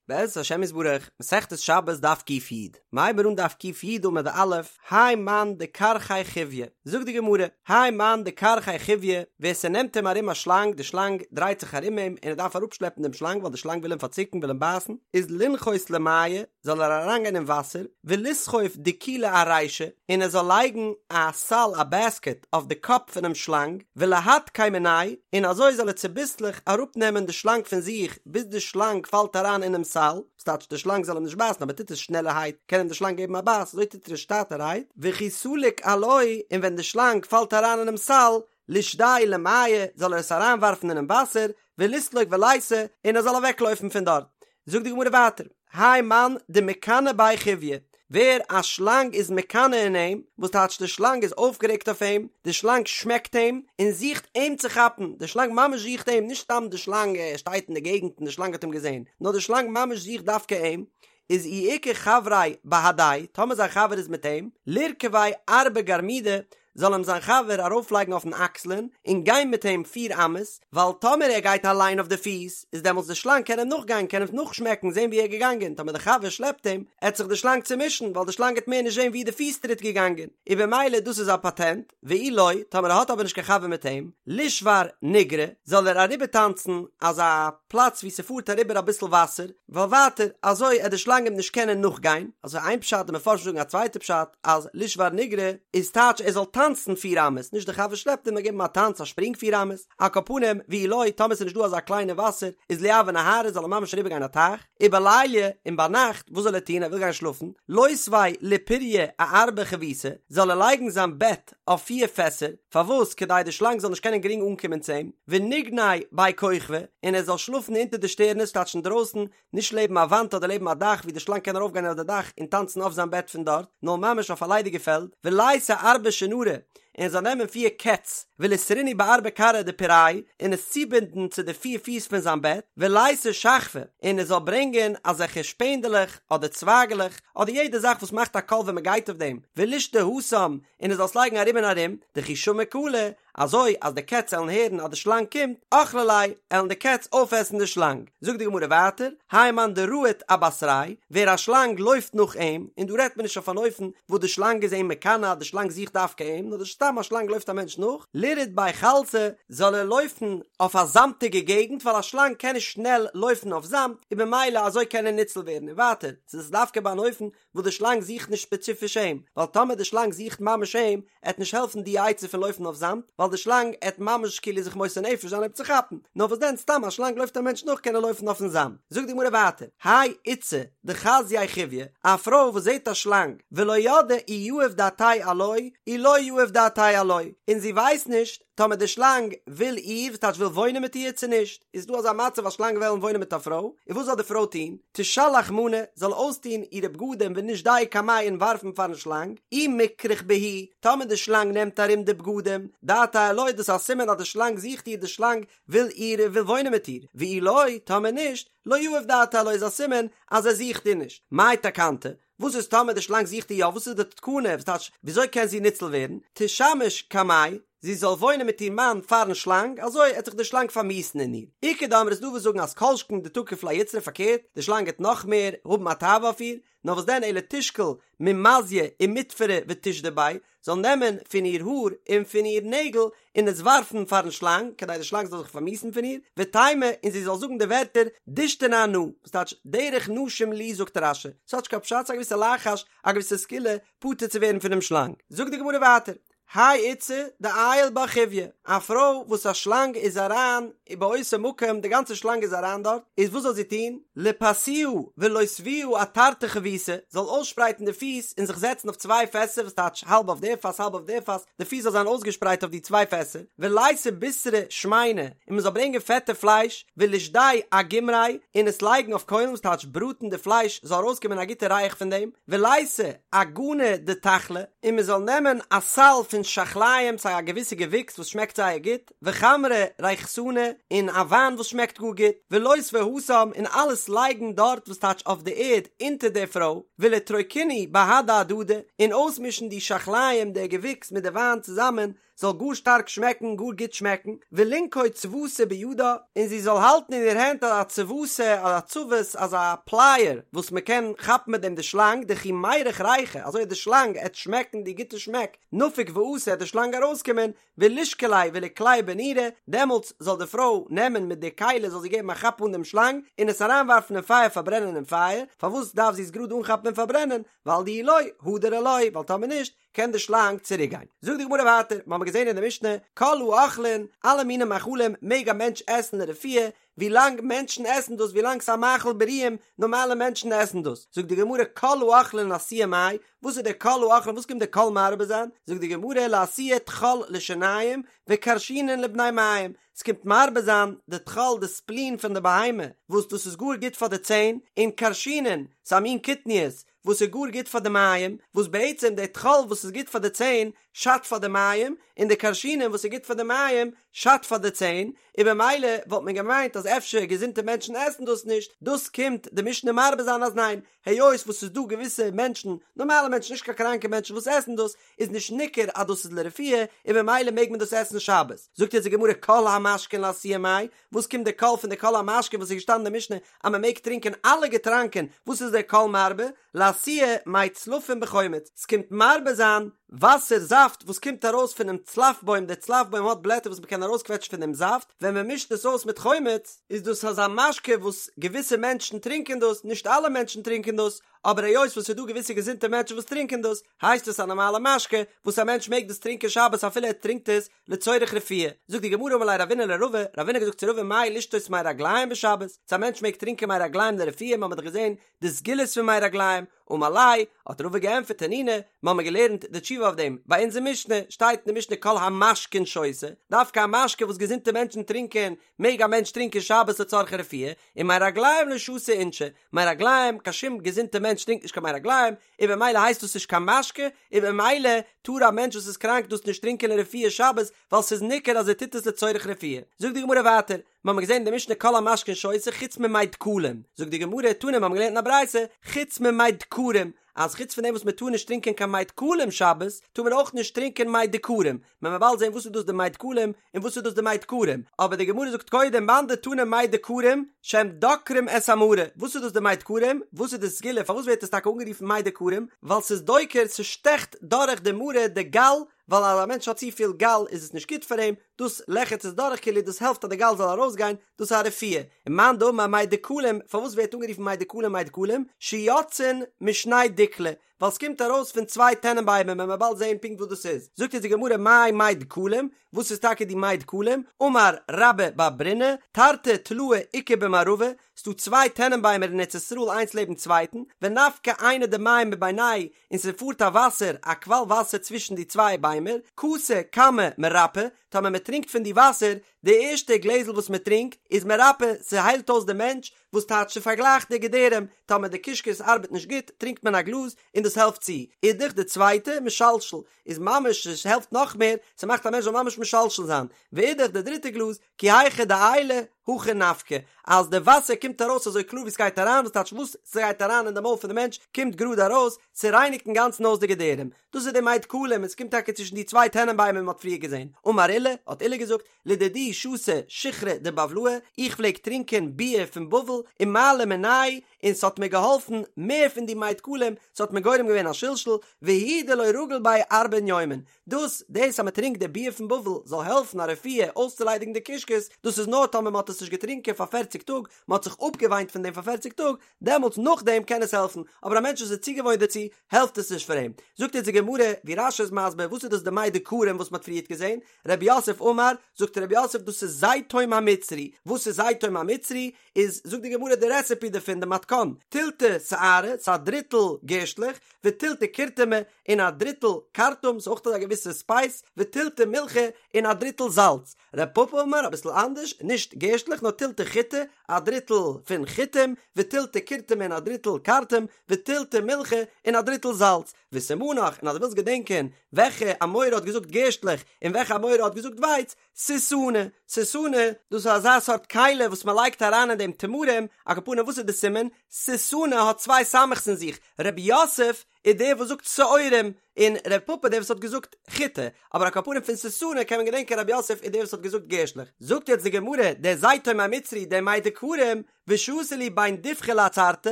בעזרת השם יתברך, מסכת שבת דף ק"י, מ'הייבן אן דף ק"י עמוד א', האי מאן דכרכיה חיויא, זאגט די גמרא, האי מאן דכרכיה חיויא, ווער ס'נעמט אים ארום א שלאנג, די שלאנג דרייט זיך ארום אים און ער דארף אראפשלעפן דעם שלאנג ווייל די שלאנג וויל אים פארצוקן וויל אים בייסן, איז לינחות למיא, זאל ער אריינגיין אין וואסער, וליסחוב דיקולא ארישיה, און ער זאל לייגן א סל א בעסקעט אויף די קאפ פונעם שלאנג, ולהדקיה מיניה, און אזוי זאל ער צוביסלעך אראפנעמען די שלאנג פון זיך ביז די שלאנג פאלט אריין אינעם סל, ס'טייטש די שלאנג זאל אים נישט בייסן אבער טוט עס שנעלערהייט קען אים די שלאנג געבן א בייס, אזוי טוט ער עס שטאטערהייט, וכי סליק עילויה, און ווען די שלאנג פאלט אריין אינעם סל, לישדייה למיא, זאל ער עס אריינווארפן אינעם וואסער, וליסלוק וליתי, און ער זאל אוועקלויפן פון דארט. זאגט די גמרא ווייטער, האי מאן דמיקני ביה חיויא, ווער א שלאנג איז מקנא אין אים, וואס טייטש די שלאנג איז אויפגערעגט אויף אים, די שלאנג שמעקט אים, און זוכט אים צו כאפן, די שלאנג ממש זוכט אים, נישט סתם די שלאנג שטייט אין די געגנט און די שלאנג האט אים געזען, נאר די שלאנג ממש זוכט דווקא אים, איז אי איכא חבריה בהדיה, טאמער זיין חבר איז מיט אים, לירכביה ארבע גרמידי, זאל אים זיין חבר ארויפלייגן אויפן אקסלען און גיין מיט אים פיר אמות, ווייל טאמער ער גייט אליין אויף די פיס, איז דעמאלטס די שלאנג קען אים נאכגיין, קען אים נאכשמעקן, זען ווי ער איז געגאנגען, טאמער די חבר שלעפט אים, עט זיך די שלאנג צומישן, ווייל די שלאנג עט מער נישט זען ווי די פיס טריט געגאנגען, און במילא דאס איז א פאטענט, ואי לא, טאמער ער האט אבער נישט קיין חבר מיט אים, לישבר ניגרא, זאל ער אריבערטאנצן אזא פלאץ ווי ס'פארט אריבער אביסל וואסער, ווייל ווייטער אזוי עט די שלאנג אים נישט קענען נאכגיין, אזוי איין פשט, די מפרשים זאגן א צווייטע פשט, אז לישבר ניגרא איז טייטש ער זאל טאנצן פיר אמות, נישט די חבר שלעפט אים נאר געבן א טאנץ א שפרינג פיר אמות, על כל פנים, ואי לא, טאמער ס'איז נישט דא אזא קליינע וואסער, איז ליעבר נהרא זאל ער ממש אריבערגיין א טייך, ובליליא, און ביינאכט, וואס זאל ער טון, ער וויל גיין שלאפן, לותביה לפוריא אארבע חביתי, זאל ער לייגן זיין בעט אויף פיר פעסער, פארוואס, כדי די שלאנג זאל נישט קענען גרינג אנקומען צו אים, וניגני בי כוכבי, און ער זאל שלאפן אונטער די שטערנעס, טייטש אינדרויסן, נישט לעבן א וואנט אדער לעבן א דאך ווי די שלאנג קען ארויפגיין אויף די דאך און טאנצן אויף זיין בעט פון דארט, נאר ממש אויף א ליידיגע פעלד, וליתי ארבע שונרי, און ער זאל נעמען פיר קעץ, וליסרינהו בארבע כרעי דפורייה, און עס צובינדן צו די פיר פיס פון זיין בעט, וליתי שחפי, און ער זאל ברענגען אזעלכע שפענדעלעך אדער צווייגעלעך, אדער יעדע זאך וואס מאכט א קול ווען מען גייט אויף דעם, ולישדי התם, און ער זאל עס לייגן ארום און ארום, דכי שמעי קלא, אזוי אז די קעץ עלן הערן אז די שלאנג קומט, אכלי ליה, עלן די קעץ אויפעסן די שלאנג. זאגט די גמרא ווייטער, האי מאן דרהיט אבתריה, ווער א שלאנג לויפט נאך אים, און דא רעדט מען נישט אויף אן אופן וואס די שלאנג איז אים מקנא אז די שלאנג זוכט דווקא אים, נאר סתם א שלאנג לויפט א מענטש נאך, לירהוט בי חלתא, זאל ער לויפן אויף א זאמטיגע געגנט ווייל א שלאנג קען נישט שנעל לויפן אויף זאמד, און במילא אזוי קען ער ניצל ווערן, און ווייטער, ס'איז דווקא ביי אן אופן וואס די שלאנג זוכט נישט ספעציפיש אים, ווייל טאמער די שלאנג זוכט ממש אים, עט נישט העלפן די עצה פון לויפן אויף זאמד, ווייל די שלאנג עט ממש כאילו זיך מוסר נפש זיין אים צו כאפן, נאר וואס דען סתם א שלאנג לויפט א מענטש נאך קען ער לויפן אויפן זאמד. זאגט די גמרא ווייטער, האי איתתא דחזיא חיויא, א פרוי וואס זעט א שלאנג, ולא ידעה אי יהיב דעתיה עילויה, אי לא יהיב דעתיה עילויה, און זי ווייסט נישט טאמער די שלאנג וויל איר, וואס טייטש וויל וואוינען מיט איר צו נישט, איז דא אזא מצב אז שלאנג וועלן וואוינען מיט א פרוי, און וואס זאל די פרוי טון? תשלח מאני, זאל אויסטון אירע בגדים ונישדייהו קמיה און ווארפן פארן שלאנג, אי מכרך בהו, טאמער די שלאנג נעמט ארום די בגדים, דעתיה עילויה, דאס איז א סימן אז די שלאנג זוכט איר, די שלאנג וויל איר און וויל וואוינען מיט איר, ואי לא, טאמער נישט, לא יהיב דעתיה עילויה איז א סימן אז ער זוכט איר נישט. מאי תקנתה? וואס איז טאמער די שלאנג זוכט איר יא, וואס איז די תקנה, וואס טייטש, וויאזוי קען זי ניצל ווערן? תשמש קמיה, זי זאל וואוינען מיט איר מאן פארן שלאנג, אזוי עט זיך די שלאנג פארמיאוסן אין איר. איכא דאמרי איז דא וואס זאגן אז כל שכן דתקיף לה יצרא פארקערט, די שלאנג עט נאך מער האבן א תאווה אויף איר, נאר וואס דען אלא תשקול ממזיא ומטפרא ותשדי ביה, זאל נעמען פון איר האר און פון איר נעגל און עס ווארפן פארן שלאנג, כדי די שלאנג זאל זיך פארמיאוסן פון איר, ותימא, און זי זאל זאגן די ווערטער, דישתנא אנא, וואס טייטש, דרך נשים לי זאגט רש"י, ס'האט נישט קיין פשט, ס'איז א געוויסע לחש, א געוויסע סגולה, פטור צו ווערן פונעם שלאנג. זאגט די גמרא ווייטער, האי איתתא דעייל בה חיויא, א פרוי וואס א שלאנג איז אריין באותו מקום, די גאנצע שלאנג איז אריין דארט, איז וואס זאל זי טון? ליפסוה ולותבוה אתרתי חביתי, זאל אויסשפרייטן די פיס און זיך זעצן אויף צוויי פעסער, וואס טייטש האלב אויף די פאס האלב אויף די פאס, די פיס זאל זיין אויסגעשפרייט אויף די צוויי פעסער, וליתי בישרא שמינא, און מען זאל ברענגען פעטע פלייש, ולישדייה אגומרי, און עס לייגן אויף קוילן, וואס טייטש בראטן די פלייש זאל ארויסקומען א גוטע ריח פון דעם, וליתי אגנא דתחלי, און מען זאל נעמען א סל פון שחליים, ס'איז א געוויסע געוויקס וואס שמעקט זייער גוט, וחמרא ריחתנא, און א וויין וואס שמעקט גאר גוט, ולותביה התם, און אלעס לייגן דארט וואס טייטש אויף די ערד אונטער די פרוי, ולטרוקינהו בהדי הדדי, און אויסמישן די שחליים די געוויקס מיט די וויין צוזאמען, זאל גאר שטארק שמעקן, גאר גוט שמעקן, ולינקוט צבתא בידה, און זי זאל האלטן אין איר הענט אזא צבתא, אזא צבת, אזא פלייער, וואס מען קען כאפן מיט דעם די שלאנג, דכי מירח ריחא, אזוי אז די שלאנג עט שמעקן די גוטע שמעק, נפיק ואתי עט די שלאנג ארויסקומען, ולישקליה וליקלייה בנורא, דעמאלטס זאל די פרוי נעמען מיט די כלי זאל זי געבן א כאפ אן דעם שלאנג, און עס אריינווארפן אין פייער פארברענען אין פייער, פארוואס דארף זי עס גראד אנכאפן און פארברענען, ווייל דאי לא, הדר עילויה, ווייל טאמער נישט, קען די שלאנג צוריק גיין. זאגט די גמרא ווייטער, מ'האמיר געזען אין די משנה, כל האוכלין, אלע מיני מאכלים מעג א מענטש עסן לרפואה, ווי לאנג מענטשן עסן דאס, ווי לאנג ס'איז א מאכל בריאים, נארמאלע מענטשן עסן דאס. זאגט די גמרא, כל האוכלין לאתויי מאי, וואס איז דער כל האוכלין, וואס קומט דער כל מרבה זיין? זאגט די גמרא, לאתויי טחול לשיניים, וכרשינין לבני מעיים, ס'קומט מרבה זיין די טחול די ספלין פון די בהמה, וואס דאס איז גאר גוט פאר די ציין, און כרשינין, ס'איז א מין קטניות, וואס איז גאר גוט פאר די מעיים, וואס בעצם די טחול וואס איז גוט פאר די ציין שאדט פאר די מעיים, און די כרשינין וואס איז גוט פאר די מעיים שאדט פאר די ציין, און במילא וואלט מען געמיינט אז אפשר געזונטע מענטשן עסן דאס נישט, דאס קומט די משנה מרבה זיין אז ניין, היות וואס ס'איז דא געוויסע מענטשן, נארמאלע מענטשן נישט קיין קראנקע מענטשן וואס עסן דאס, איז נישט ניכר אז דאס איז לרפואה, און במילא מעג מען דאס עסן שבת. זאגט יעצט די גמרא כל המשקין לאתויי מאי, וואס קומט די כל פון די כל המשקין וואס איז געשטאנען אין די משנה אז מען מעג טרינקען אלע געטראנקען, וואס איז דער כל מרבה? לאתויי מי צלפין בחומץ, ס'קומט מרבה זיין וואסער זאפט וואס קומט ארויס פונעם צלף בוים, דער צלף בוים האט בלעטער וואס מען קען ארויסקוועטשן פון דעם זאפט, ווען מען מישט עס אויס מיט חומץ, איז דאס אזא משקה וואס געוויסע מענטשן טרינקען דאס, נישט אלע מענטשן טרינקען דאס, אבער היות וואס ס'איז דא געוויסע געזונטע מענטשן וואס טרינקען דאס, הייסט עס א נארמאלע משקה וואס א מענטש מעג דאס טרינקען שבת אפילו ער טרינקט עס לצורך רפואה. זאגט די גמרא אמר ליה רבינא לרבא, רבינא האט געזאגט צו רבא מהו לשתות מי רגליים בשבת, צו א מענטש מעג טרינקען מי רגליים לרפואה, מ'האמיר דאך געזען די סגולות פון מי רגליים, אמר ליה, האט רבא געענטפערט תנינא, מ'האמיר געלערנט די תשובה אויף דעם, ביי אונזער משנה, שטייט אין די משנה כל המשקין שותה, דווקא א משקה וואס געזונטע מענטשן טרינקען, מעג א מענטש טרינקען שבת לצורכי רפואה, און מי רגליים לא שתו אינשי, מי רגליים, קיין שום געזונטע מענטש טרינקט נישט קיין מי רגליים, און במילא הייסט דאס נישט קיין משקה, און במילא טאר א מענטש וואס איז קראנק דאס נישט טרינקען לרפואה שבת, ווייל ס'איז ניכר אז ער טוט עס לצורך רפואה. זאגט די גמרא ווייטער, מ'האמיר געזען אין די משנה כל המשקין שותה חוץ ממי דקלים, זאגט די גמרא, תנא מ'האמיר געלערנט אין א ברייתא, חוץ ממי דקרים, אז חוץ פון דעם וואס מ'טאר נישט טרינקען קיין מי דקלים שבת, טאר מען אויך נישט טרינקען מי דקרים, מען וועט באלד זען וואס איז דאס די מי דקלים און וואס איז דאס די מי דקרים, אבער די גמרא זאגט קודם מאן דתנא מי דקרים שהם דוקרים את המרה, וואס איז דאס די מי דקרים, וואס איז די סגולה פארוואס ווערט עס טאקע אנגערופן מי דקרים, ווייל ס'איז דוקר ס'שטעכט דורך די מרה די גאל, ווייל אז א מענטש האט צופיל גאל איז עס נישט גוט פאר אים, דאס לעכערט עס דורך כאילו דאס העלפט אז די גאל זאל ארויסגיין, דאס איז א רפואה, און מאן דאמר מי דקלים, פארוואס ווערט אנגערופן מי דקלים מי דקלים, שיוצאין משני דיקלי, ווייל ס'קומט ארויס פון צוויי טענענביימער מען וועט באלד זעהן פונקט וואס דאס איז, זאגט אונז די גמרא מאי מי דקלים, וואס איז טאקע די מי דקלים, אמר רבה בר ברונא, תרתי תלאי איכא במערבא, ס'דא צוויי טענענביימער אין ארץ ישראל איינס לעבן צווייטן, ונפקי עינא דמיא מבינייהו, און ס'פארט א וואסער, א קוואל וואסער צווישן די צוויי ביימער, כסא קמא מרפא, טאמער מען טרינקט פון די וואסער, די ערשטע גלעזל וואס מען טרינקט, איז מרפא, ס'היילט אויס די מענטש, וואס טייטש ס'פארגלייכט די געדערים, טאמער די קישקעס ארבעט נישט גוט טרינקט מען א גלאז און דאס העלפט צו, אידך די צווייטע, משלשל, איז ממש עס העלפט נאך מער, ס'מאכט א מענטש זאל ממש משלשל זיין, ואידך די דריטע גלאז, כי היכי דעיילי הכי נפקי, אז די וואסער קומט ארויס אזוי קלאר ווי ס'גייט אריין, וואס טייטש וואס ס'גייט אריין אין די מויל פון די מענטש קומט גראד ארויס, ס'רייניגט אינגאנצן אויס די געדערים, דאס איז די מי דקלים און ס'קומט טאקע צווישן די צוויי טענענביימער ווי מ'האט פריער געזען, אמר עולא, האט עולא געזאגט, לדידי שתי שיכרא דבבלאי, איך פלעג טרינקען ביר פון בבל, ומעלי מיניה, און ס'האט מיר געהאלפן מער פון די מי דקלים, ס'האט מיר גורם געווען א שלשול, והוא דלא רגיל ביה ארבעין יומין, דאס דאס אז מ'טרינקט די ביר פון בבל זאל העלפן א רפואה אויסצוליידיגן די קישקעס, דאס איז נאר טאמער מ'האט עס נישט געטרינקען פאר פערציג טאג, מ'האט זיך אפגעוויינט פון דעם פאר פערציג טאג, דעמאלטס נאכדעם קען עס העלפן, אבער א מענטש וואס איז צוגעוואוינט דערצו, העלפט עס נישט פאר אים. זאגט אונז די גמרא, ווי רש"י איז מסביר, וואס איז דאס די מי דקרים וואס מ'האט פריערט געזען, רב יוסף אמר, זאגט רב יוסף דאס איז זיתום המצרי, וואס איז זיתום המצרי? איז זאגט די גמרא די רעסעפי דערפון די מתכון, תילתא שערי, ס'איז א דריטל גערשטלעך, ותילתא קורטמי, און א דריטל כרטום, ס'איז אויך אזא געוויסע ספייס, ותילתא מילחא, און א דריטל זאלץ. רב פפא אמר אביסל אנדערש, נישט גערשטלעך נאר תילתא חיטי, א דריטל פון חיטים, ותילתא קורטמי און א דריטל כרטום, ותילתא מילחא, און א דריטל זאלץ. וסימנך, און אז דו ווילסט געדענקען וועלכע אמורא האט געזאגט גערשטלעך און וועלכע אמורא האט געזאגט ווייץ, סיתנא, סיתנא, דאס איז אזא סארט כלי וואס מען לייגט אריין אין דעם תמרים, על כל פנים וואס איז די סימן? סיתנא האט צוויי סמך'ס אין זיך, רב יוסף איז דער וואס זאגט שעורים, און ר' פפא דער וואס האט געזאגט חיטה, אבער על כל פנים פון סיסנא קען מען געדענקען רב יוסף איז דער וואס האט געזאגט גערשטלעך. זאגט יעצט די גמרא, דער זיתום המצרי דער מי דקרים, ושתי להו בין דיבחא לעצרתא,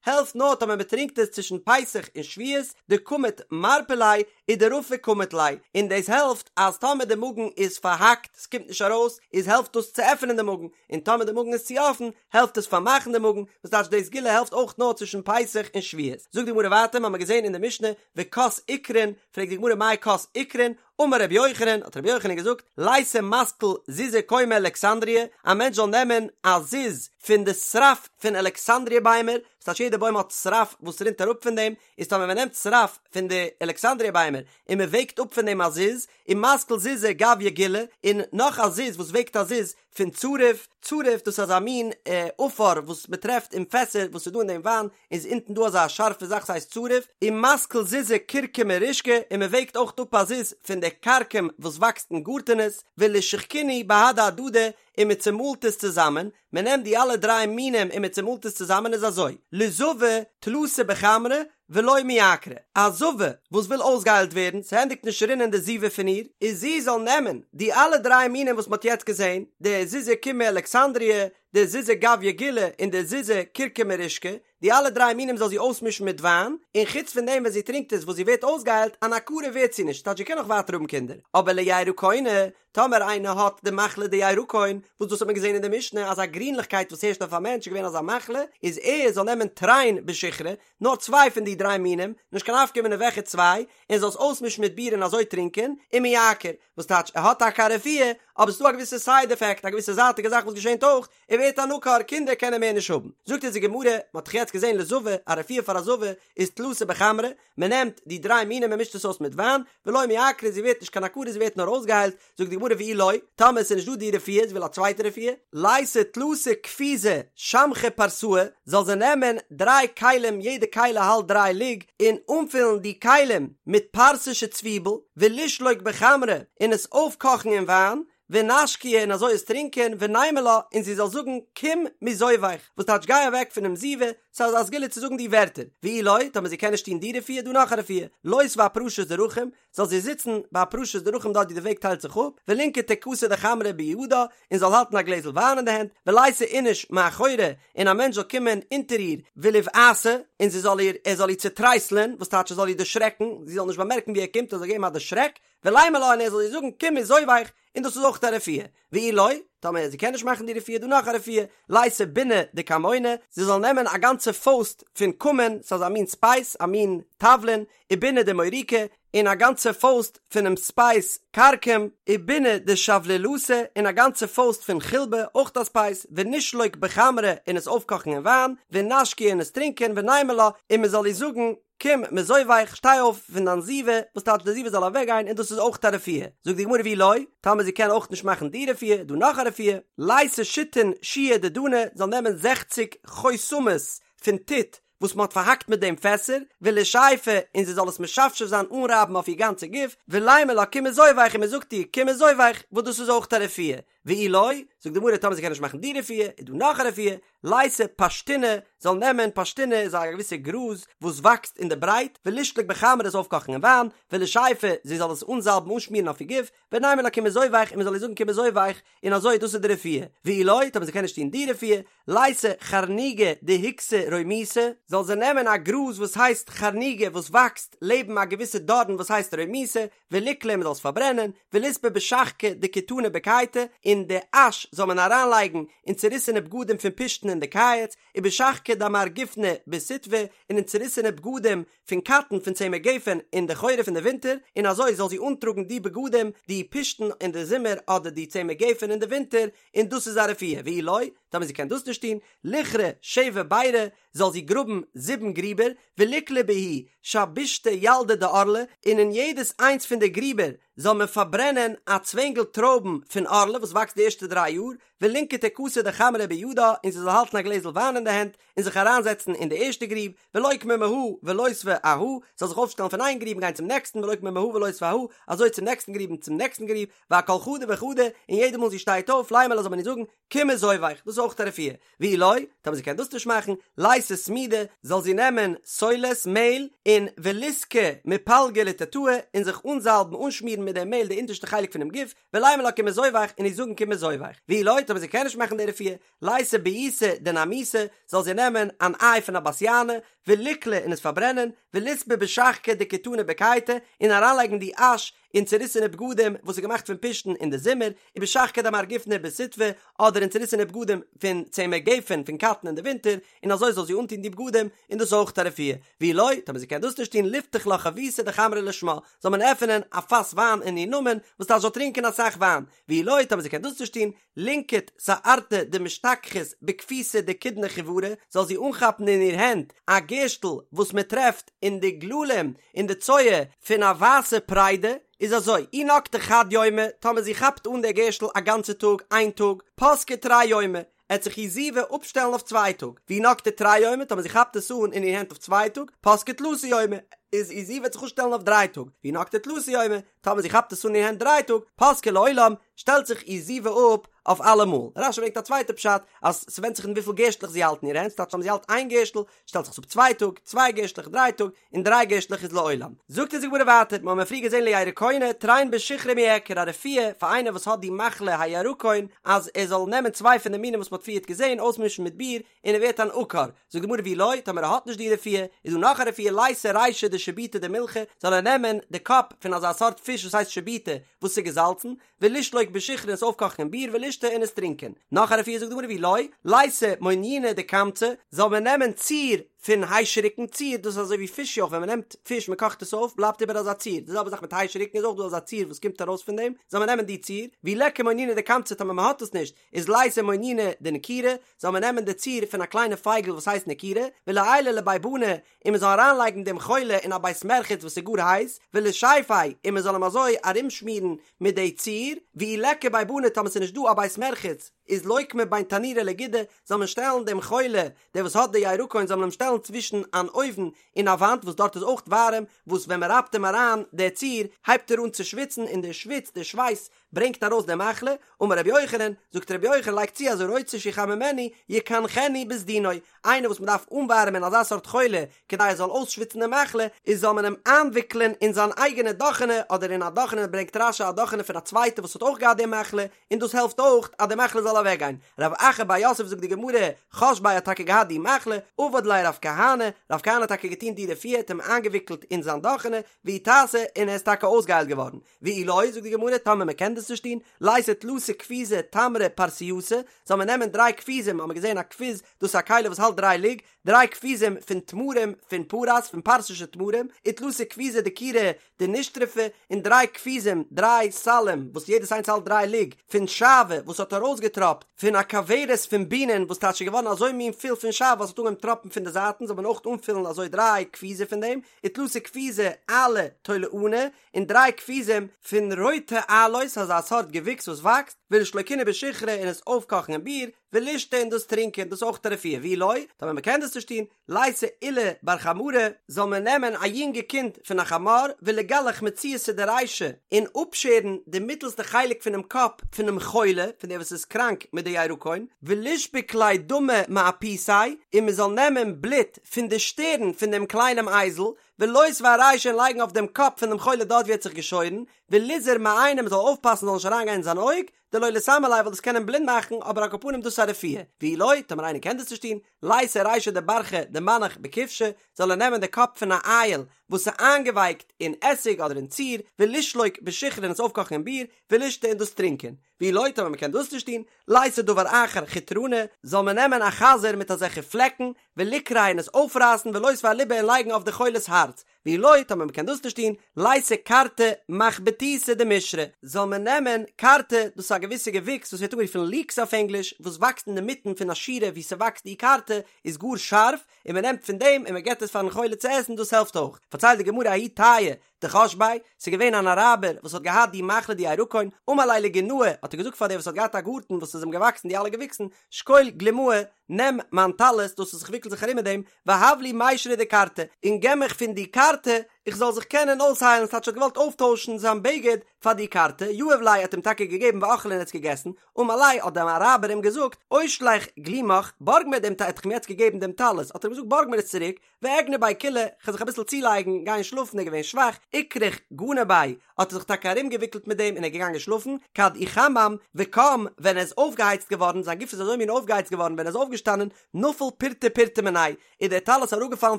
העלפט נאר טאמער מען טרינקט עס צווישן פסח און שבועות, דקמיט מרפי ליה ודרפי קמיט ליה, און דאס העלפט אז טאמער די מאגן איז פארהאקט, ס'קומט נישט ארויס, איז העלפט דאס צו עפענען די מאגן, און טאמער די מאגן איז צו אפן, העלפט עס פארמאכן די מאגן, וואס טייטש די סגולה העלפט אויך נאר צווישן פסח און שבועות. זאגט די גמרא ווייטער, מ'האמער געזען אין די משנה, וכוס עיקרין, פרעגט די גמרא מאי כוס עיקרין, אמר רבי יוחנן, האט רבי יוחנן געזאגט, ליתי מתקל זוזי קומי אלכסנדריה, א מענטש זאל נעמען א זוז פון די שרף פון אלכסנדריה ביימער, וואס טייטש יעדע בוים האט שרף וואס רינט אראפ פון דעם, איז טאמער מען נעמט שרף פון די אלכסנדריה ביימער און מען וועגט אפ פון דעם א זוז, ומתקל זוזא גויא גילי, און נאך א זוז וואס וועגט א זוז פון צריף, צריף דאס איז אזא מין עפר וואס מען טרעפט אין פעסער וואס איז דא אין דעם וויין, איז אונטן דא אזא שארפע זאך ס'הייסט צריף, ומתקל זוזא כורכמא רישכא, און מען וועגט אויך אפ א זוז פון די כרכום וואס וואקסט אין גארטענעס, ולישחקינהו בהדי הדדי, און מען צומאלט עס צוזאמען, מען נעמט די אלע דריי מינים און מען צומאלט עס צוזאמען איז אזוי, לזבה תלתא בחמרא ולא מיעקרא, א זבה וואס וויל אויסגעהיילט ווערן, ס'ענדיגט נישט רינען די זיבה פון איר, איז זי זאל נעמען די אלע דריי מינים וואס מען האט יעצט געזען, די זוזי קומי אלכסנדריה, די זוזא גויא גילי און די זוזא כורכמא רישכא, די אלע דריי מינים זאל זי אויסמישן מיט וויין, און חוץ פון דעם ווען זי טרינקט עס וואס זי ווערט אויסגעהיילט, אן עקרה ווערט זי נישט, ס'טייטש זי קען נאך ווייטער האבן קינדער, אבער לירקונא, טאמער איינער האט די מחלה די ירקון, וואס דאס האט מען געזען אין די משנה אז א גרינליכקייט וואס הערשט אויף א מענטש איז געווען אזא מחלה, איז ער זאל נעמען תרין בשיכרא, נאר צוויי פון די דריי מינים, נישט קיין נפקא מינה וועלכע צוויי, און זאל עס אויסמישן מיט ביר און אזוי טרינקען, ומיעקר, וואס טייטש ער האט טאקע א רפואה, אבער ס'איז דא א געוויסע סייד עפעקט, א געוויסע זייטיגע זאך וואס געשענט אויך, ער ווערט אן עקר, קינדער קען ער מער נישט האבן. זאגט אונז די גמרא, מען האט דאך יעצט געזען לזבה, א רפואה פאר א זבה איז תלתא בחמרא, מען נעמט די דריי מינים מען מישט עס אויס מיט וויין, ולא מיעקרא זי ווערט נישט קיין עקרה זי ווערט נאר אויסגעהיילט, זאגט די גמרא ואי לא, טאמער עס איז נישט דא די רפואה, זי וויל א צווייטע רפואה, ליתי תלתא כפיזי שמכי פרסאי, זאל זי נעמען דריי כלים יעדע כלי האלט דריי לוג, און אנפילן די כלים מיט פרסישע צוויבל, ולישלוק בחמרא, און עס אויפקאכן אין וויין, ונשקיה און אזוי עס טרינקען, ונימא לה, און זי זאל זאגן, קום מזוביך, וואס טייטש גיי אוועק פונעם זיבה, ס'איז א סגולה צו זאגן די ווערטער, ואי לא, טאמער זי קען נישט טון די רפואה, דא נאך א רפואה, לותבה אפרשת דרכים, זאל זי זיצן ביי פרשת דרכים דארט ווי די וועג טיילט זיך אפ, ולינקטה כסא דחמרא בידה, און זאל האלטן א גלעזל וויין אין די הענט, וליתי איניש מאחורה, און א מענטש זאל קומען אונטער איר, וליבעתה, און זי זאל איר, ער זאל איר צוטרייסלען, וואס טייטש ער זאל איר דערשרעקן, זי זאל נישט באמערקן ווי ער קומט, ער זאל געבן א דערשרעק, ולימא לה און ער זאל איר זאגן קום מזוביך, און דאס איז אויך א רפואה, ואי לא, טאמער זי קען נישט מאכן די רפואה, דא נאך א רפואה, ליתי בונא דכמונא, זי זאל נעמען א גאנצע פויסט פון כמון, ס'איז א מין ספייס, א מין תבלין, ובונא דמוריקא, און א גאנצע פויסט פונעם ספייס כרכום, ובונא דשבלילתא, און א גאנצע פויסט פון חילבא, אויך א ספייס, ונישלוק בחמרא, און עס אויפקאכן אין וויין, ונשקיה און עס טרינקען, ונימא לה, און מען זאל איר זאגן, קום מזוביך, שטיי אויף פון דיין זיבה, וואס טייטש די זיבה זאל אוועק גיין, און דאס איז אויך א רפואה. זאגט די גמרא ואי לא, טאמער זי קען אויך נישט מאכן די רפואה, איז דא נאך א רפואה, ליתי שיתין שיעי דדנא, זאל נעמען זעכציג חותמות פון טיט וואס מען האט פארהאקט מיט דעם פעסער, ולישייפא, און זי זאל עס משפשף זיין אנרייבן אויף איר גאנצע גוף, ולימא לה קום מזוביך און מען זאגט איר קום מזוביך, וואס דאס איז אויך א רפואה. ואי לא, זאגט די גמרא טאמער זי קען נישט מאכן די רפואה, איז דא נאך א רפואה, ליתי פשתינא, זאל נעמען, פשתינא איז א געוויסע גראז וואס וואקסט אין די ברייט, ולישלוק בחמרא עס אויפקאכן אין וויין, ולישייפא, זי זאל עס אנזאלבן אנשמירן אויף איר גוף, ונימא לה קום מזוביך און מען זאל איר זאגן קום מזוביך, און אזוי דאס איז די רפואה, ואי לא, טאמער זי קען נישט טון די רפואה, ליתי חרניגא דהיקסא רומיתא, זאל זי נעמען א גראז וואס הייסט חרניגא וואס וואקסט לעבן א געוויסע דארן וואס הייסט רומיתא, וליקליה מען זאל עס פארברענען, וליספא בשחקא דכיתנא בקייטא, און די אש זאל מען אריינלייגן אין צוריסענע בגדים פון פשתן אין די קיץ, ובשחקא דעמר גופנא בסיטבא, און אין צוריסענע בגדים פון קאטן פון צמר גפן אין די חורף אין די ווינטער, און אזוי זאל זי אנטראגן די בגדים, די פשתן אין די זומער אדער די צמר גפן אין די ווינטער, און דאס איז א רפואה, ואי לא, טאמער זי קען דאס נישט טון, ליכרי שבע בירי, זאל זי גראבן זיבן גריבער, וליקלי בהו שבישתא ילדי דערלה, און אין יעדעס איינס פון די גריבער זאל מען פארברענען א צווענגל טרויבן פון ערלה וואס וואקסט די ערשטע דריי יאר, ולינקטה כסא דחמרא בידה, און זי זאל האלטן א גלעזל וויין אין די הענט, און זיך אריינזעצן אין די ערשטע גריב, ולוקמה מהא ולותבה אהא, זאל זיך אויפשטעלן פון איין גריב און גיין צום נעקסטן, ולוקמה מהא ולותבה אהא, אזוי צום נעקסטן גריב און צום נעקסטן גריב, ואכל חדא וחדא, און יעדע מאל זי שטייט אויף, לימא לה זאל מען איר זאגן, קום מזוביך, דאס איז. אויך א רפואה. ואי לא, טאמער זי קען דאס נישט מאכן, לייתי סמידא, זאל זי נעמען סולת, מעהל, און וליסקא מפלגא לתתאי, און זיך אנזאלבן, אנשמירן מיט דעם מעהל די אונטערשטע חלק פונעם גוף, ולימא לה כי מזובך, און איר זאגן כי מזובך. ואי לא, טאמער זי קען נישט מאכן די רפואה, לייתי ביעתא דנרמוסי, זאל זי נעמען אן איי פון א בת יענה, וליקלי און עס פארברענען, וליסבי בשחקא דכיתנא בקיטא, און אריינלייגן די אש אין צוריסענע בגדים וואס איז געמאכט פון פשתן אין די זומער, ובשחקא דמר גופנא בסיטבא, אדער אין צוריסענע בגדים פון צמר גפן פון קאטן אין די ווינטער, און אזוי זאל זי אנטון די בגדים, און דאס איז אויך א רפואה. ואי לא, טאמער זי קען דאס נישט טון, ליפתח לה חביתא דחמרא לשמה, זאל מען עפענען א פאס וויין אין איר נאמען, וואס טייטש זאל טרינקען אסאך וויין. ואי לא, טאמער זי קען דאס נישט טון, לינקוט שערתא דמשתכחת בכפיתא דכידנא חיורא, זאל זי אנכאפן אין איר הענט א גערשטל וואס מען טרעפט אין די גללים אין די צואה פון א ווייסע פריידע, איז אזוי, אי נקטה חד יומא, טאמער זי כאפט אן דער גערשטל א גאנצע טאג, איין טאג, פסקה תרי יומי, עט זיך איר זיבה אפשטעלן אויף צוויי טאג, ואי נקטה תרי יומי, טאמער זי כאפט עס אן אין איר הענט אויף צוויי טאג, פסקה תלתא יומי, איז איר זיבה וועט זיך אפשטעלן אויף דריי טאג, ואי נקטה תלתא יומי, טאמער זי כאפט עס אן אין איר הענט דריי טאג, פסקה לעולם, שטעלט זיך איר זיבה אפ אויף אלעמאל. רש"י ברענגט א צווייטע פשט, אז ס'ווענדט זיך אין וויפיל גערשטלעך זי האלט אין איר הענט, ס'טייטש טאמער זי האלט איין גערשטל, שטעלט זיך עס אפ צוויי טאג, צוויי גערשטלעך דריי טאג, און דריי גערשטלעך איז לעולם. זאגט אונז די גמרא ווייטער, מ'האמיר פריער געזען לירקונא, תרין בשיכרא מיעקר, א רפואה פאר איינער וואס האט די מחלה הירקון, אז ער זאל נעמען צוויי פון די מינים וואס מ'האט פריערט געזען, אויסמישן מיט ביר, און ער ווערט אן עקר. זאגט די גמרא ואי לא, טאמער ער האט נישט די רפואה, איז דא נאך א רפואה לייתי רישא דשיבוטא דמילחא, זאל ער נעמען די קאפ פון אזא סארט פיש וואס הייסט שיבוטא, וואס איז געזאלצן, ולישלוק בשיכרא און עס אויפקאכן אין ביר ולישתי און עס טרינקען. נאך א רפואה זאגט די גמרא ואי לא, לייתי מוניינא דכמצא, זאל מען נעמען ציר פון היישעריקן, ציר דאס איז אזוי ווי פיש יויך ווען מען נעמט פיש מען קאכט עס אויף בלייבט איבער אזא ציר, די זעלבע זאך מיט היישעריקן איז אויך דא אזא ציר וואס קומט ארויס פון דעם, זאל מען נעמען די ציר, ואי ליכא מוניינא דכמצא טאמער מען האט עס נישט, איז לייתי מוניינא דנקירא, זאל מען נעמען די ציר פון א קליינע פייגל וואס הייסט נקירא, וליעייליה לבי בני, און מען זאל אריינלייגן דעם חולה אין א בית מרחץ וואס איז גאר הייס, ולישיפיה, און מען זאל אים אזוי ארומשמירן מיט די ציר, ואי ליכא בי בני טאמער ס'איז נישט דא א בית מרחץ, איז לוקמיה בין תנורא לגודא, זאל מען שטעלן דעם חולה, דער וואס האט די ירקון זאל מען אים שטעלן צווישן אן אויוון און א וואנט וואס דארט איז אויך ווארעם, וואס ווען מען רייבט אים אריין די ציר, הייבט ער אן צו שוויצן און די שוויץ, די שווייס, ברענגט ארויס די מחלה, אמר רבי יוחנן, זאגט רבי יוחנן לייגט צו אז הרוצה שיחממנו יקנחנו בסדינו, איינער וואס מען דארף אנווארעמען אזא סארט חולה כדי ער זאל אויסשוויצן די מחלה, איז זאל מען אים איינוויקלען אין זיין אייגענע דאכענע אדער אין א דאכענע ברענגט רש"י א דאכענע פון א צווייטע וואס האט אויך געהאט די מחלה, און דאס העלפט אויך אז די מחלה זאל אוועקגיין. רב אחא בר יוסף זאגט די גמרא, חש ביה האט טאקע געהאט די מחלה, עבד ליה רב כהנא, רב כהנא האט טאקע געטון די רפואה, האט אים איינגעוויקלט אין זיין דאכענע, ואיתסי, און ער איז טאקע אויסגעהיילט געווארן. ואי לא, זאגט די גמרא, טאמער מען קען דאס נישט טון, לייתי תלתא כפיזי תמרי פרסייתא, זאל מען נעמען דריי כפיזים, האט מען געזען א כפיז, דאס איז א כלי וואס האלט דריי לוג, דריי כפיזים פון תמרים פון פרס, פון פרסישע תמרים, ותלתא כפיזי דקירא דנשטרפא, און דריי כפיזים, דריי סלים, וואס יעדעס איינס האלט דריי לוג, פון שעוה, וואס האט ארויסגעטראפט פון א כוורת פון בינען, וואס טייטש איז געווארן אזוי מין פול פון שעוה וואס האט אנגעהויבן טראפן פון די זייטן, זאל מען אויך אנפילן אזוי דריי כפיזי פון דעם, ותלתא כפיזי עלא תולענא, און דריי כפיזים פון רויטע עלאות, אזא סארט געוויקס וואס וואקסט, ולישלוקינהו בשיכרא און עס אויפקאכן אין ביר, ולישתי און דאס טרינקען, דאס איז אויך א רפואה, ואי לא, טאמער מען קען דאס נישט טון, לייתי עולא בר חמרא, זאל מען נעמען א יונגע קינד פון א חמור, וליגלח מציעתא דרישא, און אפשערן די מיטלסטע חלק פונעם קאפ פונעם חולה, פון דער וואס איז קראנק מיט די ירקון, ולישבוק ליה דמא מאפותיה, און מען זאל נעמען בלוט פון די שטערן פון דעם קליינעם אייזל, ולותביה ארישיה און לייגן אויף דעם קאפ פון דעם חולה דארט ווי ער האט זיך געשוירן, וליזהר מעיניה מען זאל אויפפאסן זאל נישט אריינגיין אין זיין אויג, דלא ליסמי ליה ווייל דאס קען אים בלינד מאכן, אבער על כל פנים דאס איז א רפואה, ואי לא, טאמער איינער קען דאס נישט טון, לייתי רישא דברחא דמנח בכבשא, זאל ער נעמען די קאפ פון א אייל וואס איז איינגעווייקט אין עסיג אדער אין ציר, ולישלוק בשיכרא און עס אויפקאכן אין ביר, ולישתי און דאס טרינקען. ואי לא, טאמער מען קען דאס נישט טון, לייתי דבר אחר חוטרנא, זאל מען נעמען א חזיר מיט אזעלכע פלעקן, וליקרעיה און עס אויפרייסן ולותביה אליבא און לייגן אויף די חולה'ס הארץ, ואי לא, טאמער מען קען דאס נישט טון, לייתי כרתי מחבתיתא דמישרא, זאל מען נעמען כרתי, דאס איז א געוויסע געוויקס וואס ווערט אנגערופן ליקס אויף ענגליש, וואס וואקסט אינדערמיטן פון א שורה וואו ס'וואקסט די כרתי, איז גאר שארף, און מען נעמט פון דעם און מען געבט עס פארן חולה צו עסן, דאס העלפט אויך. פארציילט די גמרא ההוא טייעא דחש ביה, ס'איז געווען אן אראבער וואס האט געהאט די מחלה די ירקון, אמר ליה לגינאי, האט ער געזאגט פאר דער וואס האט געהאט א גארטן וואס איז אים געוואקסן די אלע געוויקסן, שקול גלימאי, נעם מיין טלית, דאס וואס איך וויקל זיך ארום מיט דעם, והב לי מישרא דכרתי, און געב מיך פון די כרתי, איך זאל זיך קענען אויסהיילן, ס'טייטש ער האט געוואלט אויפטוישן זיין בגד פאר די כרתי, יהב ליה האט אים טאקע געגעבן ואכליה און ער האט עס געגעסן, אמר ליה האט דער אראבער אים געזאגט, אושלך גלימך, בארג מיר דעם, ער האט אים יעצט געגעבן דעם טלית, האט ער אים געזאגט בארג מיר עס צוריק, ואגני ביה קילא, כ'וועל זיך אביסל צולייגן, גיין שלאפן, ער איז געווען שוואך, אכרוך גני ביה, האט ער זיך טאקע ארומגעוויקלט מיט דעם און ער איז געגאנגען שלאפן, כד איחמם וקם, ווען ער איז אויפגעהייצט געווארן, זיין גוף איז אזוי מין אויפגעהייצט געווארן ווען ער איז אויפגעשטאנען, נפל פורתא פורתא מיניה, איז דער טלית אראפגעפאלן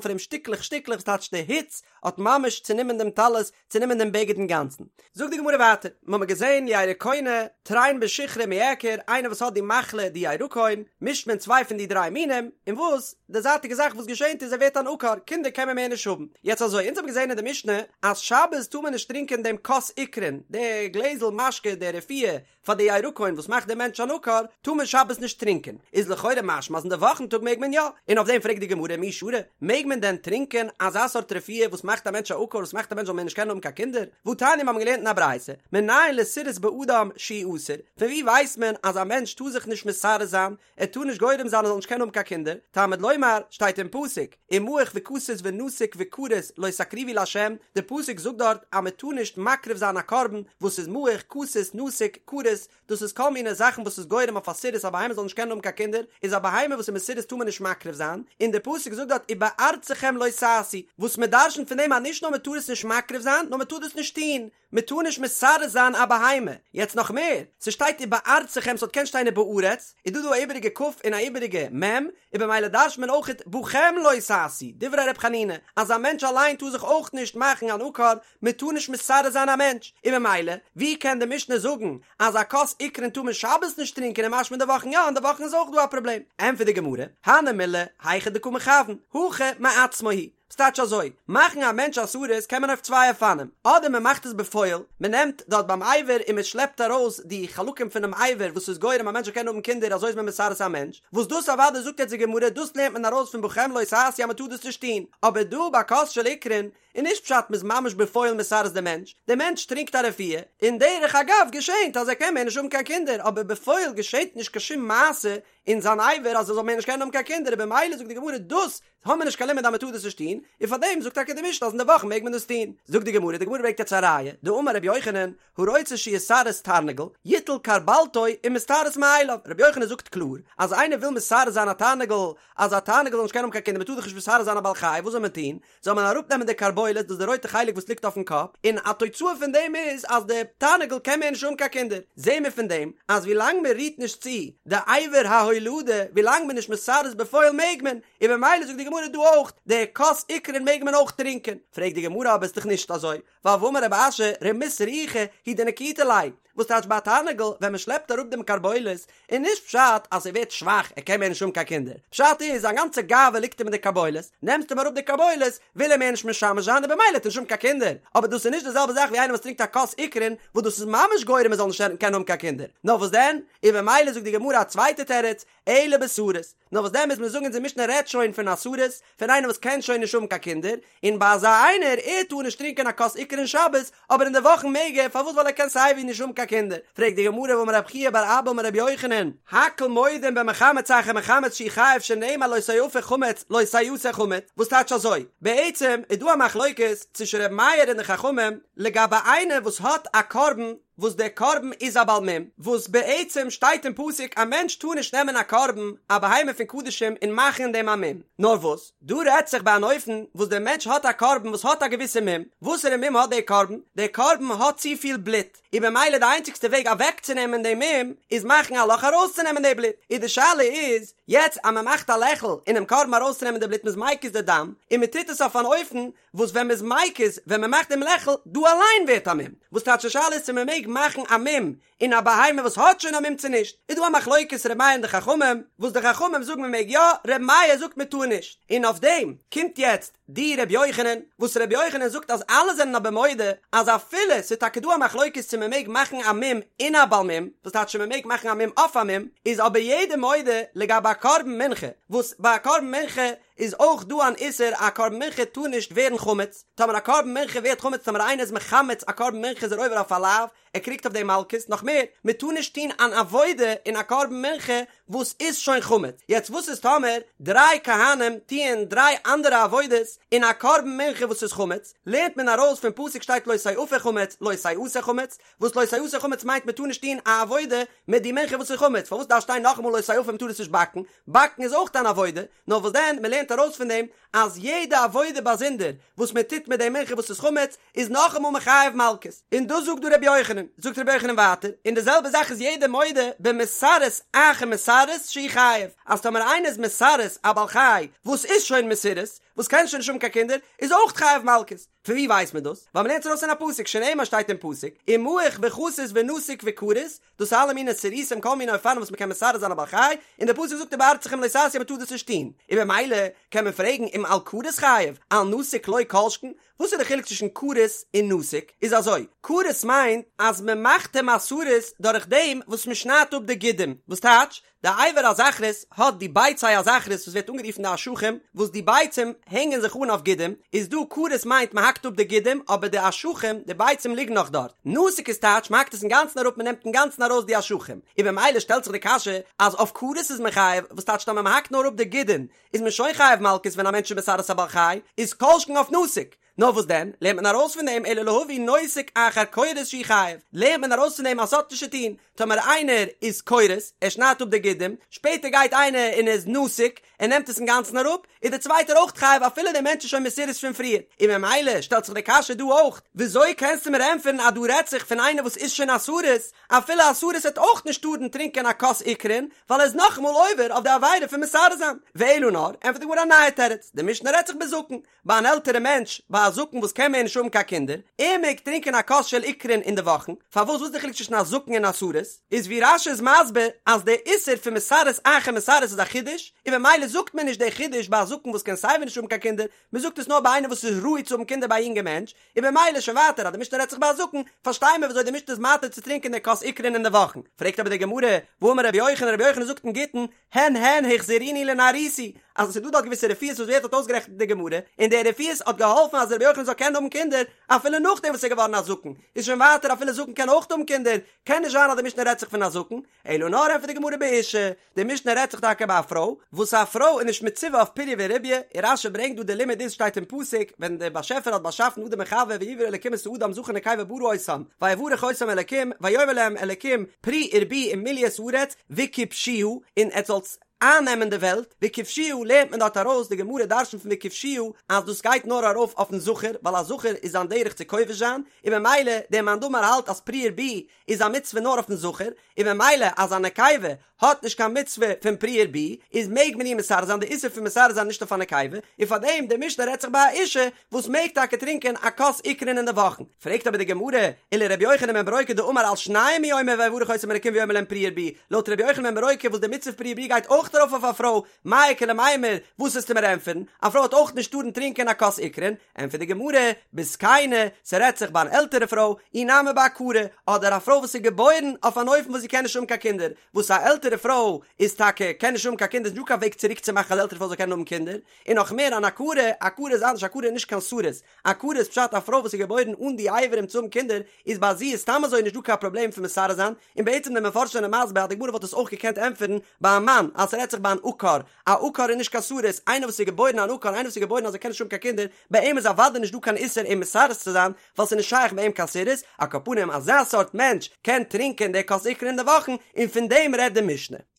פון אים שטיקלעך שטיקלעך, ס'טייטש די היץ האט ממש צענומען דעם טלית, צענומען דעם בגד אינגאנצן. זאגט די גמרא ווייטער, מיר האבן געזען ירקונא, תרין בשיכרא מיעקר, איינער וואס האט די מחלה די ירקון, מישט מען צוויי פון די דריי מינים, און וואס? די זייטיגע זאך וואס געשענט איז ער ווערט אן עקר, קינדער קען מען מער נישט האבן. יעצט אזוי, אונז האבן געזען אין די משנה אז שבת טאר מען נישט טרינקען דעם כוס עיקרין, די גלעזל משקה, די רפואה פאר די ירקון וואס מאכט דעם מענטש אן עקר, טאר מען שבת נישט טרינקען. איז לכאורה משמע אז אין די וואכן טאג מעג מען יא. און אויף דעם פרעגט די גמרא מי שרי, מעג מען דען טרינקען אזא סארט רפואה וואס מאכט א מענטש א עקר, וואס מאכט א מענטש זאל מער נישט קענען האבן קיין קינדער? והתניא מיר האבן געלערנט אין א ברייתא, מנין לסירוס באדם שהוא אסור, פון וואו ווייסט מען אז א מענטש טאר זיך נישט מסרס זיין, ער טאר נישט גורם זיין ער זאל נישט קענען האבן קיין קינדער, תלמוד לומר, שטייט אין פסוק, ומעוך וכתות ונתוק וכרות לא תקריבו לה', די פסוק זאגט דארט אז מען טאר נישט מקריב זיין א קרבן וואס איז מעוך, כתות, נתוק, כרות, דאס איז כל מיני זאכן וואס איז גורם אויף א סירוס א בהמה זאל נישט קענען האבן קיין קינדער, איז א בהמה וואס איז מסורס טאר מען נישט מקריב זיין, און די פסוק זאגט דארט ובארצכם לא תעשו, וואס מען דרשנ'ט פון דעם אז נישט נאר מען טאר עס נישט מקריב זיין, נאר מען טאר דאס נישט טון. מען טאר נישט מסרס זיין א בהמה, יעצט נאך מער, ס'שטייט ובארצכם ס'וואלט געקענט שטיין ובארץ, איז דא דא א איבעריגע כ' און א איבעריגע מ', און במילא דרש'ט מען אויכעט בכם לא תעשו, דברי ר' חנינא, אז א מענטש אליין טאר זיך אויך נישט מאכן אן עקר, מען טאר נישט מסרס זיין א מענטש, און במילא, ווי קען די משנה זאגן אז א כוס עיקרין טאר מען שבת נישט טרינקען און משמע אין די וואכן יא, אין די וואכן איז אויך דא א פראבלעם? ענטפערט די גמרא, הני מילי, היכא דקא מכוון, הכא מעצמו הוא. ס'טייטש אזוי, מאכן א מענטש א סריס קען מען אויף צוויי אופנים, אדער מען מאכט עס בפועל, מען נעמט דארט ביים אבר און מען שלעפט ארויס די חלקים פונעם אבר וואס איז גורם א מענטש זאל קענען האבן קינדער אזוי איז מען מסרס א מענטש, וואס דאס אוודאי זאגט יעצט די גמרא דאס לערנט מען ארויס פון בכם לא תעשו אז מען טאר דאס נישט טון, אבער דא ביי כוס של עיקרין איז נישט פשט מען איז ממש בפועל מסרס די מענטש, די מענטש טרינקט א רפואה, און דרך אגב געשענט אז ער קען מער נישט האבן קיין קינדער אבער בפועל געשענט נישט קיין שום מעשה אין זיין אבר אז ער זאל מער נישט קענען האבן קיין קינדער און במילא זאגט די גמרא דאס האבן מיר נישט קיין לימוד אז מען טאר דאס נישט טון, און פאר דעם זאגט טאקע די משנה אז אין די וואכן מעג מען דאס טון. זאגט די גמרא, די גמרא ברענגט יעצט א ראיה, דאמר רבי יוחנן, הרוצה שיסרס תרנגול, יטול כרבלתו ומסתרס מאליו, רבי יוחנן זאגט קלאר, אז איינער וויל מסרס זיין א תרנגול, אז א תרנגול זאל נישט קענען האבן קיין קינדער, מען טאר דאך נישט מסרס זיין א בעל חי, וואס זאל מען טון? זאל מען אראפנעמען די כרבולת, דאס איז די רויטע חלק וואס ליגט אויפן קאפ, און א תוצאה פון דעם איז אז די תרנגול קען מער נישט האבן קיין קינדער. זעהן מיר פון דעם אז ווי לאנג מען רירט נישט צו די אבר ההולדה, ווי לאנג מען איז נישט מסרס בפועל מעג מען, און במילא זאגט די גמרא דא אויך, די כוס עיקרין מעג מען אויך טרינקען. פרעגט די גמרא אבער איז דאך נישט אזוי, ווייל והאמר רב אשי רמות רוחא הוא דנקיטא ליה, וואס טייטש ביי א תרנגול ווען מען שלעפט אראפ דעם כרבולת איז נישט פשט אז ער ווערט שוואך ער קען מער נישט האבן קיין קינדער, פשט איז זיין גאנצע גאווה ליגט אים אין די כרבולת, נעמסט אים אראפ די כרבולת וויל ער מער נישט משמש זיין און במילא האט ער נישט האבן קיין קינדער, אבער דאס איז נישט די זעלבע זאך ווי איינער וואס טרינקט א כוס עיקרין וואס דאס איז ממש גורם ער זאל נישט קענען האבן קיין קינדער, נאר וואס דען? און במילא זאגט די גמרא א צווייטע תירוץ, אלא בסריס, נאר וואס דען מוז מען זאגן אונזער משנה רעדט שוין פון א סריס, פון איינער וואס קען שוין נישט האבן קיין קינדער, און ביי אזא איינער, ער טאר נישט טרינקען א כוס עיקרין שבת, אבער אין די וואכן מעג ער, פארוואס ווייל ער קען סייווי נישט האבן קיין קינדער, פרעגט די גמרא והאמר רב חייא בר אבא אמר רבי יוחנן, הכל מודים במחמץ אחר מחמץ שהוא חייב שנאמר לא תאפה חמץ לא תעשה חמץ, וואס טייטש אזוי? בעצם איז דא א מחלוקת צווישן רבי מאיר און די חכמים לגבי איינער וואס האט א קרבן וואס דער קרבן איז א בעל מום, וואס בעצם שטייט אין פסוק א מענטש טאר נישט נעמען א קרבן א בהמה פון קדשים און מאכן אין דעם א מום, נאר וואס דא רעדט זיך ביי אן אופן וואס דער מענטש האט א קרבן וואס האט א געוויסע מום, וואסערע מום האט דער קרבן? דער קרבן האט צופיל בלוט, און במילא די איינציגסטע וועג אוועקצונעמען דעם מום איז מאכן א לאך ארויסצונעמען די בלוט, און די שאלה איז יעצט אז מען מאכט א לעכל אינעם קרבן ארויסצונעמען די בלוט מ'איז מקיז די דם, און מען טוט עס אויף אן אופן וואס ווען מ'איז מקיז, ווען מ'מאכט דעם לעכל, דא אליין ווערט א מום. וואס טייטש די שאלה איז צו מ'מעג מאכן א מום אין א בהמה וואס האט שוין א מום צו נישט. איז דא א מחלוקת ר' מאיר און די חכמים, וואס די חכמים זאגן מ'מעג יא, ר' מאיר זאגט מ'טאר נישט. און אויף דעם קומט יעצט די ר' יוחנן, וואס ר' יוחנן זאגט אז אלע זענען אבער מודה אז אפילו ס'איז טאקע דא א מחלוקת צו מ'מעג מאכן א מום אין א בעל מום, וואס טייטש צו מ'מעג מאכן א מום אויף א מום, איז אבער יעדער מודה לגבי א קרבן מנחה, וואס ביי א קרבן מנחה. איז אויך דא אן איסור א קרבן מנחה טאר נישט ווערן חמץ, טאמער א קרבן מנחה ווערט חמץ טאמער איינער איז מחמץ א קרבן מנחה איז ער עובר אויף א לאו, ער קריגט אויף דעם מלקות, נאך מער, מען טאר נישט טון אן עבודה אין א קרבן מנחה וואס איז שוין חמץ, יעצט וואס איז טאמער דריי כהנים טוען דריי אנדערע עבודות אין א קרבן מנחה וואס איז חמץ, לערנט מען ארויס פון פסוק שטייט לא תאפה חמץ לא תעשה חמץ, וואס לא תעשה חמץ מיינט מען טאר נישט טון א עבודה מיט די מנחה וואס איז חמץ, פארוואס דארף שטיין נאכאמאל לא תאפה מען טאר עס נישט באקן, באקן איז אויך אן עבודה, נאר וואס דען מען לערנט ארויס פון דעם אז יעדע עבודה באזונדער וואס מען טוט מיט די מנחה וואס איז חמץ איז נאכאמאל מחייב מלקות, און דאס זאגט דא רבי יוחנן, זאגט רבי יוחנן ווייטער, און די זעלבע זאך איז יעדער מודה במסרס אחר מסרס שהוא חייב, אז טאמער איינער איז מסרס א בעל חי וואס איז שוין מסורס, וואס קען שוין נישט האבן קיין קינדער, איז אויך חייב מלקות. פון ווי ווייסט מען דאס? ווייל מ'לערנט עס ארויס אין א פסוק, שנאמר שטייט אין פסוק, ומעוך וחסוס ונתוק וכרות, דאס איז אלע מיני סירוסים כל מיני אופנים וואס מ'קען מסרס זיין א בעל חי, און דער פסוק זאגט ובארצכם לא תעשו מ'טאר דאס נישט טון, און במילא קען מען פרעגן אם על כרות חייב, על נתוק לא כל שכן, וואס איז די חילוק צווישן כרות און נתוק? איז אזוי, כרות מיינט אז מ'מאכט אים א סריס דורך דעם וואס מ'שניידט אפ די גידים, וואס טייטש? די אבר הזכרות האט די ביצי הזכרות וואס ווערט אנגערופן די אשכים, וואס די ביצים הענגען זיך אן אויף גידים, איז דא כרות מיינט מען האקט אפ די גידים אבער די אשכים, די ביצים ליגן נאך דארט, נתוק איז טייטש מען האקט עס אינגאנצן אראפ מען נעמט אינגאנצן ארויס די אשכים, און במילא שטעלט זיך די קשיא אז אויף כרות איז מען חייב, וואס טייטש טאמער מען האקט נאר אפ די גידין איז מען שוין חייב מלקות ווען א מענטש איז מסרס א בעל חי, איז כל שכן אויף נתוק. נאר וואס דען, לערנט מען ארויס פון דעם אלא להביא נותק אחר כורת שהוא חייב, לערנט מען ארויס פון דעם אז ס'האט נישט צו טון, טאמער איינער איז כורת, ער שניידט אפ די גידים, שפעטער גייט איינער און איז נתוק, ער נעמט עס אינגאנצן אראפ, איז דער צווייטער אויך חייב אפילו דער מענטש איז שוין מסורס פון פריער, און ממילא שטעלט זיך די קשיא דא אויך, וויאזוי קענסטו מיר ענטפערן אז דא רעדט זיך פון איינער וואס איז שוין א סריס, אפילו א סריס וועט אויך נישט טארן טרינקען א כוס עיקרין, ווייל ער איז נאכאמאל עובר אויף די עבירה פון מסרס זיין, ואלא נאר, ענטפערט די גמרא א נייע תירוץ, די משנה רעדט זיך בזקן, ביי אן עלטערע מענטש, ביי א זקן וואס קען מער נישט האבן קיין קינדער, ער מעג טרינקען א כוס של עיקרין אין די וואכן, פארוואס וואס איז די חילוק צווישן א זקן און א סריס? איז ווי רש"י איז מסביר אז דער איסור פון מסרס אחר מסרס איז א חידוש, און ממילא זאגט מען נישט דער חידוש ביי א זקן וואס קען סייווי נישט האבן קיין קינדער, מען זאגט עס נאר ביי איינער וואס איז ראוי צו האבן קינדער ביי א יונגע מענטש, און במילא שוין ווייטער אז די משנה רעדט זיך ביי א זקן, פארשטיי מיר וויאזוי די משנה איז מתיר צו טרינקען דער כוס עיקרין אין די וואכן. פרעגט אבער די גמרא, והאמר רבי יוחנן, רבי יוחנן זאגט אין גיטין, הן הן החזירוני לנערותי, אז עס איז דא דארט געוויסע רפואות וואס ווערט דארט אויסגערעכנט אין די גמרא, און די רפואות האט געהאלפן אז רבי יוחנן זאל קענען האבן קינדער אפילו נאכדעם וואס ער איז געווארן א זקן, איז שוין ווייטער אפילו זקן קען אויך האבן קינדער, קען נישט זיין אז די משנה רעדט זיך פון א זקן, אלא נאר ענטפערט די גמרא באשה, די משנה רעדט זיך טאקע ביי א פרוי, וואס א פרוי איז נישט מצווה אויף פריה ורביה, און רש"י ברענגט דא די לימוד איז שטייט אין פסוק, ווען דער באשעפער האט באשאפן אדם און חוה ויברא אלקים את האדם זכר ונקבה ברא אותם, ויברך אותם אלקים, ויאמר להם אלקים פרו ורבו ומלאו את הארץ וכבשוה, און עטס זאלטס אייננעמען די וועלט, וכבשוה לערנט מען דארט ארויס, די גמרא דרשנ'ט פון וכבשוה אז דאס גייט נאר ארויף אויפן זכר, ווייל א זכר איז זיין דרך צו כובש זיין, און ממילא דער מאן דאמר האלט אז פרו ורבו איז א מצוה נאר אויפן זכר, און ממילא אז א נקבה האט נישט קיין מצוה פון פרו ורבו, איז מעג מען איר מסרס זיין, די איסור פון מסרס זיין נישט אויף א נקבה, און פארדעם די משנה רעדט זיך ביי א אישה וואס מעג טאקע טרינקען א כוס עיקרין אין די וואכן. פרעגט אבער די גמרא, ולרבי יוחנן בן ברוקה דאמר על שנים הוא אומר ויברך אותם אלקים ויאמר להם פרו ורבו, לויט רבי יוחנן בן ברוקה וואס די מצוה פרו ורבו גייט אויך ארויף אויף א פרוי, מאי איכא למימר, וואס וועסטו מיר ענטפערן, א פרוי האט אויך נישט טארן טרינקען א כוס עיקרין, ענטפערט די גמרא, בזקנה, ס'רעדט זיך ביי אן עלטערע פרוי, אי נמי בעקרה, אדער א פרוי וואס איז געבוירן אויף אן אופן וואס זי קען נישט האבן קיין קינדער, וואס א עלטערע פרוי איז טאקע קען נישט האבן קיין קינדער איז נישטא קיין וועג צוריק צו מאכן אז די עלטערע פרוי זאל קענען האבן קינדער, און נאך מער אן עקרה, עקרה איז אנדערש עקרה איז נישט קיין סריס, עקרה איז פשט א פרוי וואס איז געבוירן אן די אברים צו האבן קינדער, איז ביי זי איז סתם אזוי נישט דא קיין פראבלעם פון מסרס זיין, און בעצם די מפרשים זענען מסביר אז די גמרא וואלט עס אויך געקענט ענטפערן ביי א מאן אז ס'רעדט זיך ביי אן עקר, א עקר איז נישט קיין סריס, איינער וואס איז געבוירן אן עקר, איינער וואס איז געבוירן אז ער קען נישט האבן קיין קינדער, ביי אים איז אוודאי נישט דא קיין איסור אים מסרס צו זיין, ווייל ס'איז נישט שייך ביי אים קיין סירוס, על כל פנים אזא סארט מענטש קען טרינקען די כוס עיקרין אין די וואכן, און פון דעם רעדט די משנה.